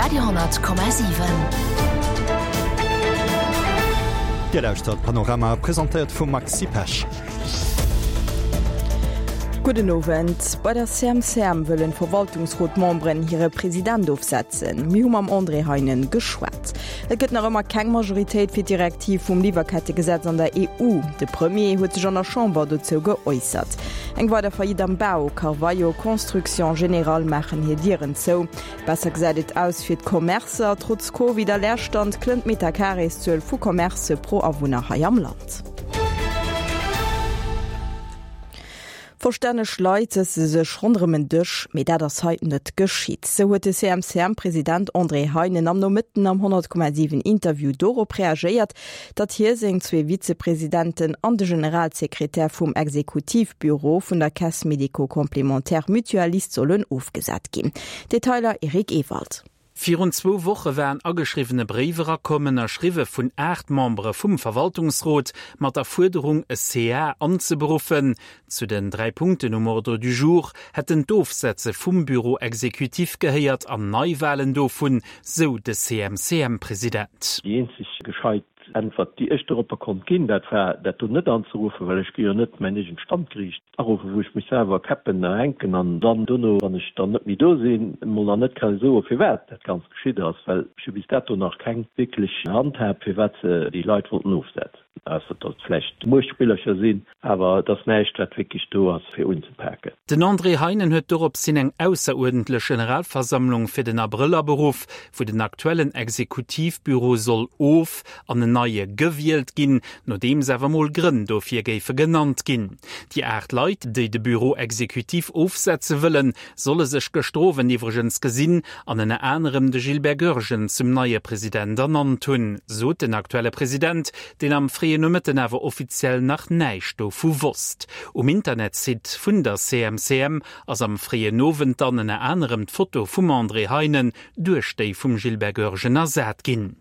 Radio 10,7. Dir lauschtert Panorama, presentéiert vum Maxi Pesch. Gudden Owend. Bei der CMCM wëllen d'Verwaltungsrot-Memberen hire President ofsetzen. Mir hu mam André Heinen geschwat. Et gëtt nach ëmmer keng Majoritéit fir d'Direktiv vum Liwwerkettegesetz an der EU. De Premier huet sech an der Chamber dozou geäussert. Eng weider Faillite am Bau, Carvalho Construction Générale maachen hir Dieren zou. Besser gesäit et aus fir d'Commercer. Trotz Covid a Leerstand klëmmt d'Metercarrészuel vu Commercë pro Awunner hei am Land. Verstänneg Leit sëtze sech ronderëm en Dësch, mee dat ass hei net geschitt. Sou huet de CMCM-President André Heinen am Nomëtten am 100,7 Interview dorop reagéiert, datt hie seng zwee Vizepresidenten an de Generalsekretär vum Exekutivbüro vun der Caisse médico-complémentaire mutualiste sollen ofgesat ginn. Detailer Eric Ewald. Virun zwou Woche war en ageschriwwene Bréif erakomm, ënnerschriwwe vun 8 Membere vum Verwaltungsrot, mat der Fuerderung, e CA anzeberuffen. Zu den 3 Punkten um Ordre du jour hätten d'Ofsetze vum Bureau exécutif gehéiert an Neiwalen dovun, sou de CMCM-President. Déi eenzeg gescheit Äntwert, déi ech doropper konnt ginn, dat war, dat do net anzeruffen, well ech gi jo net mäin eegent Standgeriicht aruffen, wou ech mech selwer käppen a hänken an dann dono, wann ech dann net méi do sinn, emol nach net kann soen, firwat dat Ganzt geschitt ass, well ech hu bis dato nach keng wierklech Handhab, firwat se déi Leit wollten ofsetzen. Ausser datt et vläicht Muechtspillercher sinn, awer et ass näischt, wat wierklech do ass, fir unzepaken. Den André Heinen huet doropshin eng ausseruerdentlech Generalversammlung fir den Abrëll aberuff, wou den aktuellen Exekutivbüro soll of an en neie gewielt ginn, nodeems awer mol Grënn dofir géife genannt ginn. Déi 8 Leit, déi de Bureau exécutif ofsetze wëllen, solle sech gëschter Owend iwwregens gesinn an ënner anerem de Gilbert Goergen zum neie President ernannt hunn, sot den aktuelle President, deen am fréien Nomëtten awer offiziell nach näischt dovu wosst. Um Internetsite vun der CMCM ass am fréien Owend dann ënner anerem d'Foto vum André Heinen duerch déi vum Gilbert Goergen ersat ginn.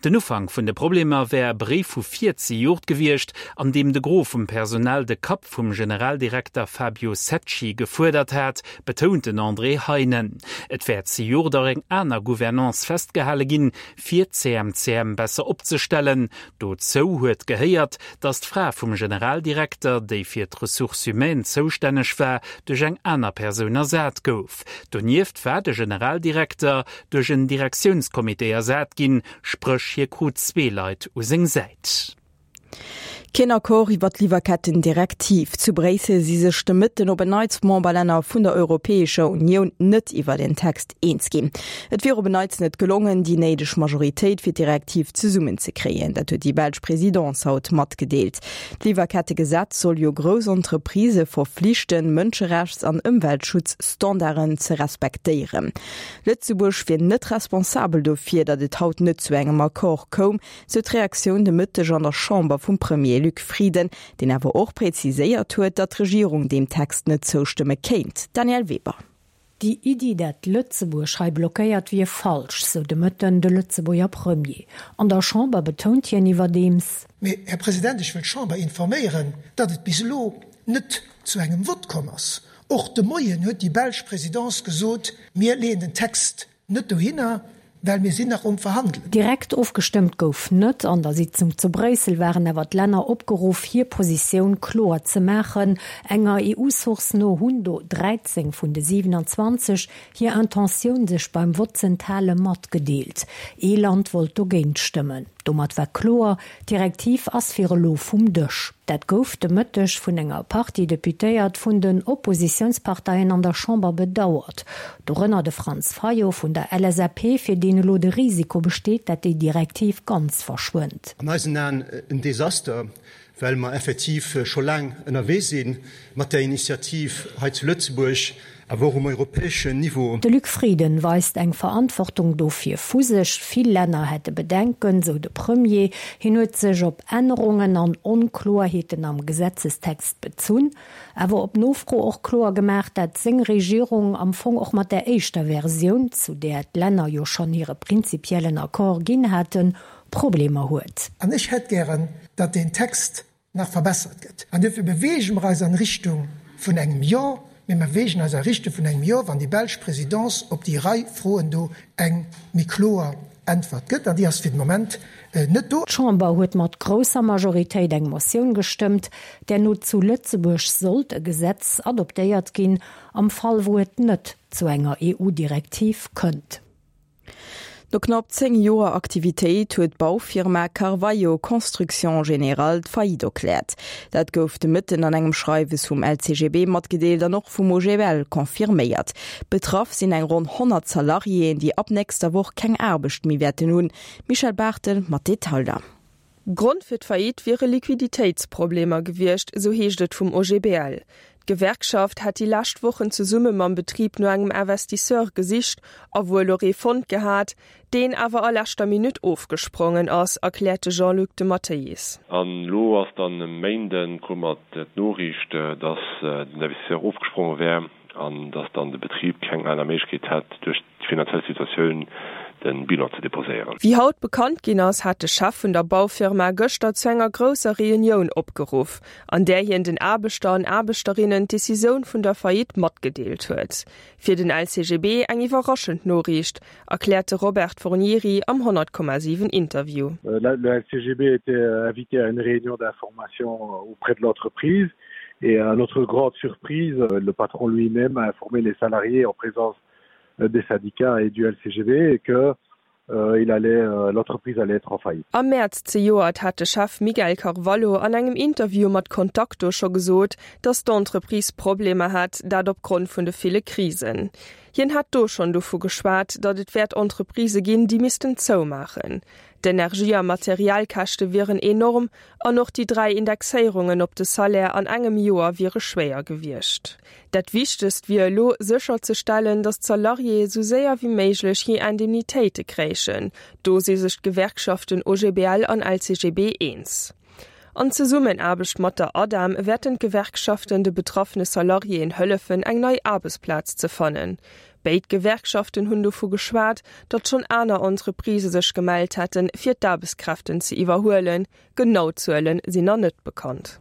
Den Ufank vun de Problemer wär e Bréif vu vir zejoert gewiescht, an deem de Gros vum Personal de Kapp vum Generaldirekter Fabio Secci gefuerdert hat, betount den André Heinen. Et wär zejoert och eng aner Gouvernance festgehale ginn, fir d'CMCM besser opzestellen. Dozou huet gehéiert, datt d'Fra vum Generaldirekter, déi fir d'Ressources humaines zoustänneg war, duerch eng aner Persoun ersat gouf. Donieft war de Generaldirekter duerch en Direktiounscomité ersat ginn, spréch hie krut zwee Leit u seng Säit. Keen Accord iwwer d'Liwwerkettendirektiv. Zu Bréissel si sech de Mëtten op en Neits d'Memberlänner vun der Europäescher Unioun net iwwer en Text eens ginn. Et wier op en Neits net gelongen, déi néideg Majoritéit fir d'Direktiv zesummenzekréien. Dat huet déi belsch Presidence haut matgedeelt. D'Liwwerkettegesetz soll jo grouss Entreprisë verflichten, Mënscherechts an Ëmweltschutzstandarden ze respektéieren. Lëtzebuerg wier net responsabel dofir, datt et haut net zu engem Accord koum, sou d'Reaktioun de Mëtteg an der Chamber vum Premier Luc Frieden, deen awer och präziséiert huet, datt d'Regierung deem Text net zoustëmme kéint. Danièle Weber. Déi Iddi, dat Lëtzebuerg hei blockéiert, wier falsch, sou de Mëtten de Lëtzebuerger Premier. An der Chamber betount hien iwwerdeems. Mee, Här President, ech wëll d'Chamber informéieren, datt et bis elo net zu engem Vott komm ass. Och de Moien huet déi belsch Présidence gesot, Mir leeën den Text net dohinner, well mir sinn nach um Verhandelen. Direkt ofgestëmmt gouf net. An der Sitzung zu Bréissel waren awer d'Länner opgeruff, hir Positioun kloer ze maachen. Enger EU-Source no hunn do 13 vun de 27 hir Intentioun, sech beim Vott z'enthale matgedeelt. Ee Land wollt dogéint stëmmen. Domat war kloer, D'Direktiv ass fir elo vum Dësch. Dat gouf de Mëtteg vun enger Partie Deputéiert vun den Oppositiounsparteien an der Chamber bedauert. Dorënner de Franz Fayot vun der LSAP, fir deen elo de Risiko besteet, dat déi Direktiv ganz verschwënnt. An eisen Aen en Desaster, well mer effektiv scho laang ënnerwee si mat där Initiativ hei zu Lëtzebuerg, awer och um europäeschen Niveau. De Luc Frieden weist eng Verantwortung dofir vu sech. Vill Länner hätte Bedenken, sou de Premier. Hien huet sech op Ännerungen an Onkloerheeten am Gesetzestext bezunn, awer op Nofro och kloer gemaach, dat seng Regierung am Fong och mat där éischter Versioun, zu där d'Länner jo schonn hire prinzipiellen Accord ginn haten, Problemer huet. An ech hätt gären, datt deen Text nach verbessert gëtt. An duerfir beweege mer eis an Richtung vun engem Jo. Mee mer beweegen eis a Richtung vun engem Jo, wann déi belsch Présidence op déi Rei Froen do eng méi kloer Äntwert gëtt. An déi ass fir de Moment net do. D'Chamber huet mat grousser Majoritéit eng Motioun gestëmmt, där no zu Lëtzebuerg sollt e Gesetz adoptéiert ginn, am Fall wou et net zu enger EU-Direktiv kënnt. No knapp 10 Joer Aktivitéit huet d'Baufirma Carvalho Construction Générale d'Faillite erkläert. Dat gouf de Mëtten an engem Schreiwes vum LCGB matgedeelt an och vum OGBL confirméiert. Betraff sinn eng ronn 100 Salariéen, déi ab nächster Woch keng Aarbecht méi wäerten hunn. Michèle Barthel mat Detailer. Grond fir d'Faillite wiere Liquiditéitsproblemer gewiescht, esou heescht et vum OGBL. D'Gewerkschaft hätt déi lescht Wochen zesumme mam Betrib no engem Investisseur gesicht a wuel och ee fonnt gehat, deen awer a leschter Minutt ofgesprongen ass, erkläert de Jean-Luc de Matteis. An elo ass dann e Méinden krute mer d'Noriicht, datt den Investisseur ofgespronge wär an datt dann de Betrib keng aner Méiglechkeet hätt, duerch d'finanziell Situatioun de Bilan ze deposéieren. Wéi haut bekannt ginn ass, hat de Chef vun der Baufirma gëschter zu enger grousser Reunioun opgeruff, an där hien den Aarbechter an Aarbechterinnen d'Decisioun vun der Faillite matgedeelt huet. Fir den LCGB eng iwwerraschend Noriicht, erkläert de Robert Fornieri am 100,7 Interview. Le LCGB était invité à une réunion d'information auprès de l'entreprise et à notre grande surprise, le patron lui-même a informé les salariés en présence euh, des syndicats et du LCGB et que euh, il allait euh, l'entreprise allait être en faillite. Am Mäerz zejoert hat de Chef Miguel Carvalho an engem Interview mat Contacto scho gesot, datt d'Entreprise Problemer hätt, dat opgrond vun de ville Krisen. Hien hat do schonn dovu geschwat, datt et wäert Entreprisë ginn, déi missten zoumaachen. D'Energie a Materialkäschte wieren enorm an och déi 3 Indexéierungen op de Salaire an engem Joer wiere schwéier gewiescht. Dat Wichtegst wier elo, sécherzestellen, datt d'Salariéë sou séier wéi méiglech hir Indemnitéite kréichen. Do si sech d'Gewerkschaften OGBL an LCGB eens. An Zesummenaarbecht mat der ADEM wäerten d'Gewerkschaften de betraffene Salariéen hëllefen, eng nei Aarbechtsplaz ze fannen. Béid Gewerkschaften hunn dovu geschwat, datt schonn aner Entreprisë sech gemellt hätten, fir d'Aarbechtskräften ze iwwerhuelen. Genau Zuele sinn nach net bekannt.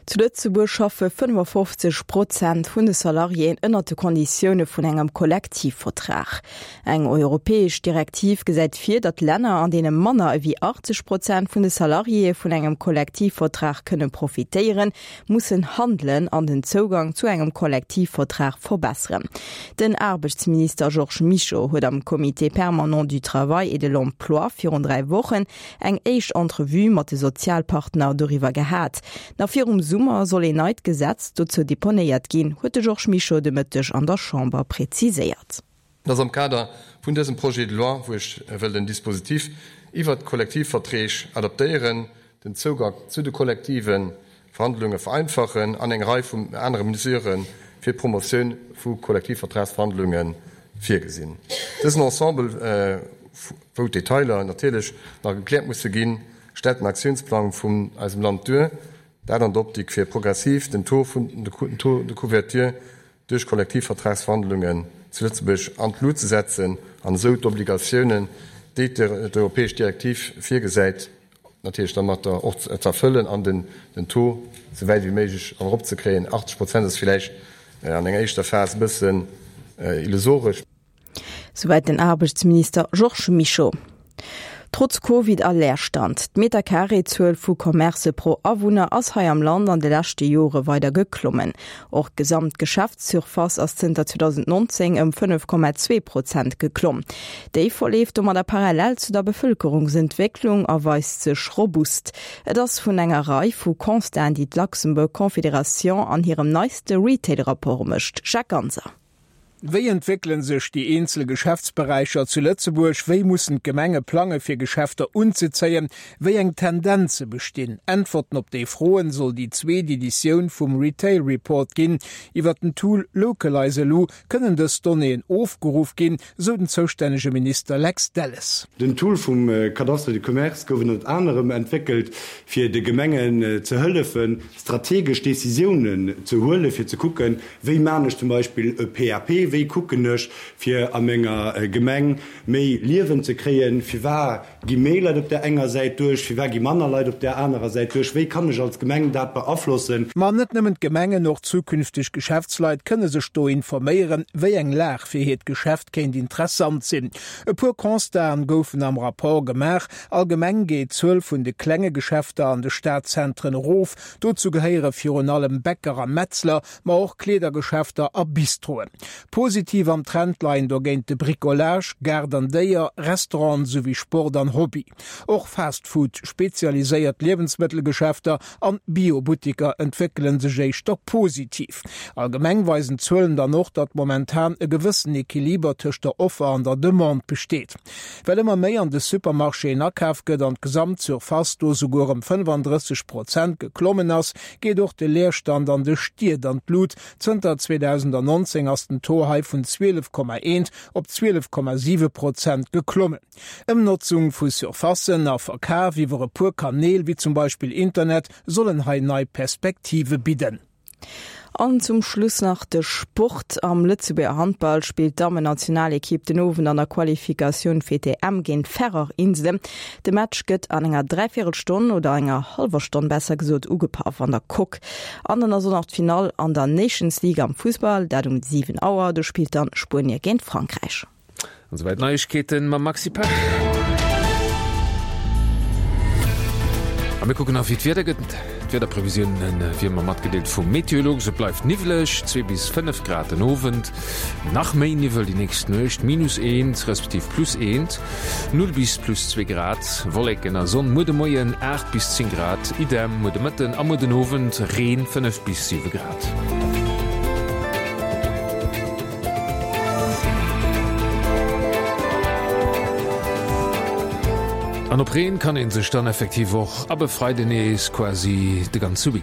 Zu Lëtzebuerg schaffe 55 Prozent vun de Salariéen ënnert de Konditioune vun engem Kollektivvertrag. Eng europäesch Direktiv gesäit vir, datt Länner, an deene manner ewéi 80 Prozent vun de Salariéë vun engem Kollektivvertrag kënne profitéieren, mussen handelen an den Zougang zu engem Kollektivvertrag verbesseren. Den Aarbechtsminister Georges Mischo huet am Comité permanent du travail et de l'emploi virun 3 Wochen eng éischt Entrevue mat de Sozialpartner doriwwer gehat. Nach virum Summer soll een neit Gesetz dozou deponéiert ginn, huet de Georges Mischo de Mëtteg an der Chamber präziséiert. Et ass am Kader vun dësem Projet de loi, wou ech wëll den Dispositif iwwert d'Kollektivverträg adaptéieren, den Zougank zu de kollektive Verhandlunge vereinfachen an eng Rei vun anere Mesurë fir d'Promotioun vu Kollektivvertragsverhandlunge virgesinn. Dësen Ensemble, wou d'Detailer natierlech nach gekläert musse ginn, stellt den Aktiounsplang vun eisem Land duer, dat an der Optik fir progressiv den Taux vun de couverture duerch Kollektivvertragsverhandlungen zu Lëtzebuerg an d'Lut ze setzen an esou d'Obligatiounen, déi d'europäesch Direktiv virgesäit, natierlech dermatter och ze erfëllen an den Taux esou wäit wéi méiglech eropzekréien. 80 Prozent ass villäicht an enger éischter Phas e bëssen illusoresch. Souwäit den Aarbechtsminister Georges Mischo. Trotz Covid a Leerstand, D'Metercarré-Zuel vu Commercë pro Awunner ass hei am Land an de leschte Jore weider geklommen. Och d'gesamt Geschäftssurface ass zënter 2019 ëm 5,2 Prozent geklomm. Déi verleeft domadder parallel zu der Bevëlkerungsentwécklung a weist sech robust. Et ass vun enger Rei vu Constaten, déi d'Luxembourg Confederation an hirem neiste Retail-Rapport mécht. Jacques Ganser. Wéi entwéckele sech déi eenzel Geschäftsberäicher zu Lëtzebuerg? Wéi mussen d'Gemenge plange fir Geschäfter unzezéien? Wéi eng Tendenze bestinn? Äntwerten op déi Froen soll déi zweet Editioun vum Retail Report ginn. Iwwer den Tool Localize-elu kënnen dës Donnéeën ofgeruff ginn, esou den zoustännege Minister Lex Delles. Den Tool vum Cadastre de Commerce gouf ënnert anerem entwéckelt, fir de Gemengen ze hëllefen, strategesch Décisiounen ze huelen, fir ze kucken, wéi maan ech zum Beispill e PAP? Wéi kucken ech, fir a menger Gemeng méi Liewen ze kréien? Firwat gi méi Leit op där enger Säit duerch, firwat gi manner Leit op där anerer Säit duerch? Wéi kann ech als Gemeng dat beaflossen? Ma net nëmmen d'Gemengen, och zukünfteg Geschäftsleit kënne sech do informéieren, wéi eng Lag fir hiert Geschäft kéint interessant sinn. E puer Constaten goufen am Rapport gemaach, Allgemeng geet d'Zuel vun de klenge Geschäfter an de Stadzentren erof. Dozou gehéiere virun allem Bäcker a Metzler, ma och Kleedergeschäfter a Bistroen. Positiv am Trend leien dogéint de Bricolage, Gaart an Déier, Restauranten esouwéi Sport an Hobby. Och Fast Food, spezialiséiert Liewensmëttelgeschäfter an Bio-Buttiker entwéckele sech éischter positiv. Allgemeng weisen d'Zuelen dann och, datt momentan e gewëssen Equiliber tëscht der Offer an der Demande besteet. Well ëmmer méi an de Supermarchéen akaf gëtt an d'Gesamtsurface do souguer ëm 35 Prozent geklommen ass, geet och de Leerstand an de Stied an d'Lut. Zënter 2019 ass den Taux hei vun 12,1 op 12,7 Prozent geklommen. Ëmnotzung vu Surfacen a Verkaf iwwer e puer Kanäl, wéi zum Beispill Internet, sollen hei nei Perspektive bidden. An zum Schluss nach de Sport. Am Lëtzebuerger Handball spillt d'Dammen-Nationalekipp den Owend an der Qualifikatioun fir d'EM géint d'Färöer-Inselen. De Match gëtt an enger Dräivirel Stonn oder enger hallwer Stonn besser gesot ugepaff an der Coque. An dann ass och nach d'Finall an der Nations League am Fussball, dat um 7 Auer. Do spillt dann Spuenie géint Frankräich. An souwäit d'Neiegkeeten mam Maxi Pesch. A mir kucken nach wéi d'Wieder gëtt. D'Wiederprevisiounen wéi ëmmer matgedeelt vum Meteolux. Et bleift niwweleg, 2 bis 5 Grad den Owend, nach méi Niwwel déi nächst Nuecht, minus 1 respektiv plus 1, 0 bis plus 2 Grad, Wolleken a Sonn muer de Moien, 8 bis 10 Grad, idem muer de Mëtten a muer den Owend, Reen, 5 bis 7 Grad. An op Reen kann een sech dann effektiv och ab e Freiden nees quasi de ganze Weekend.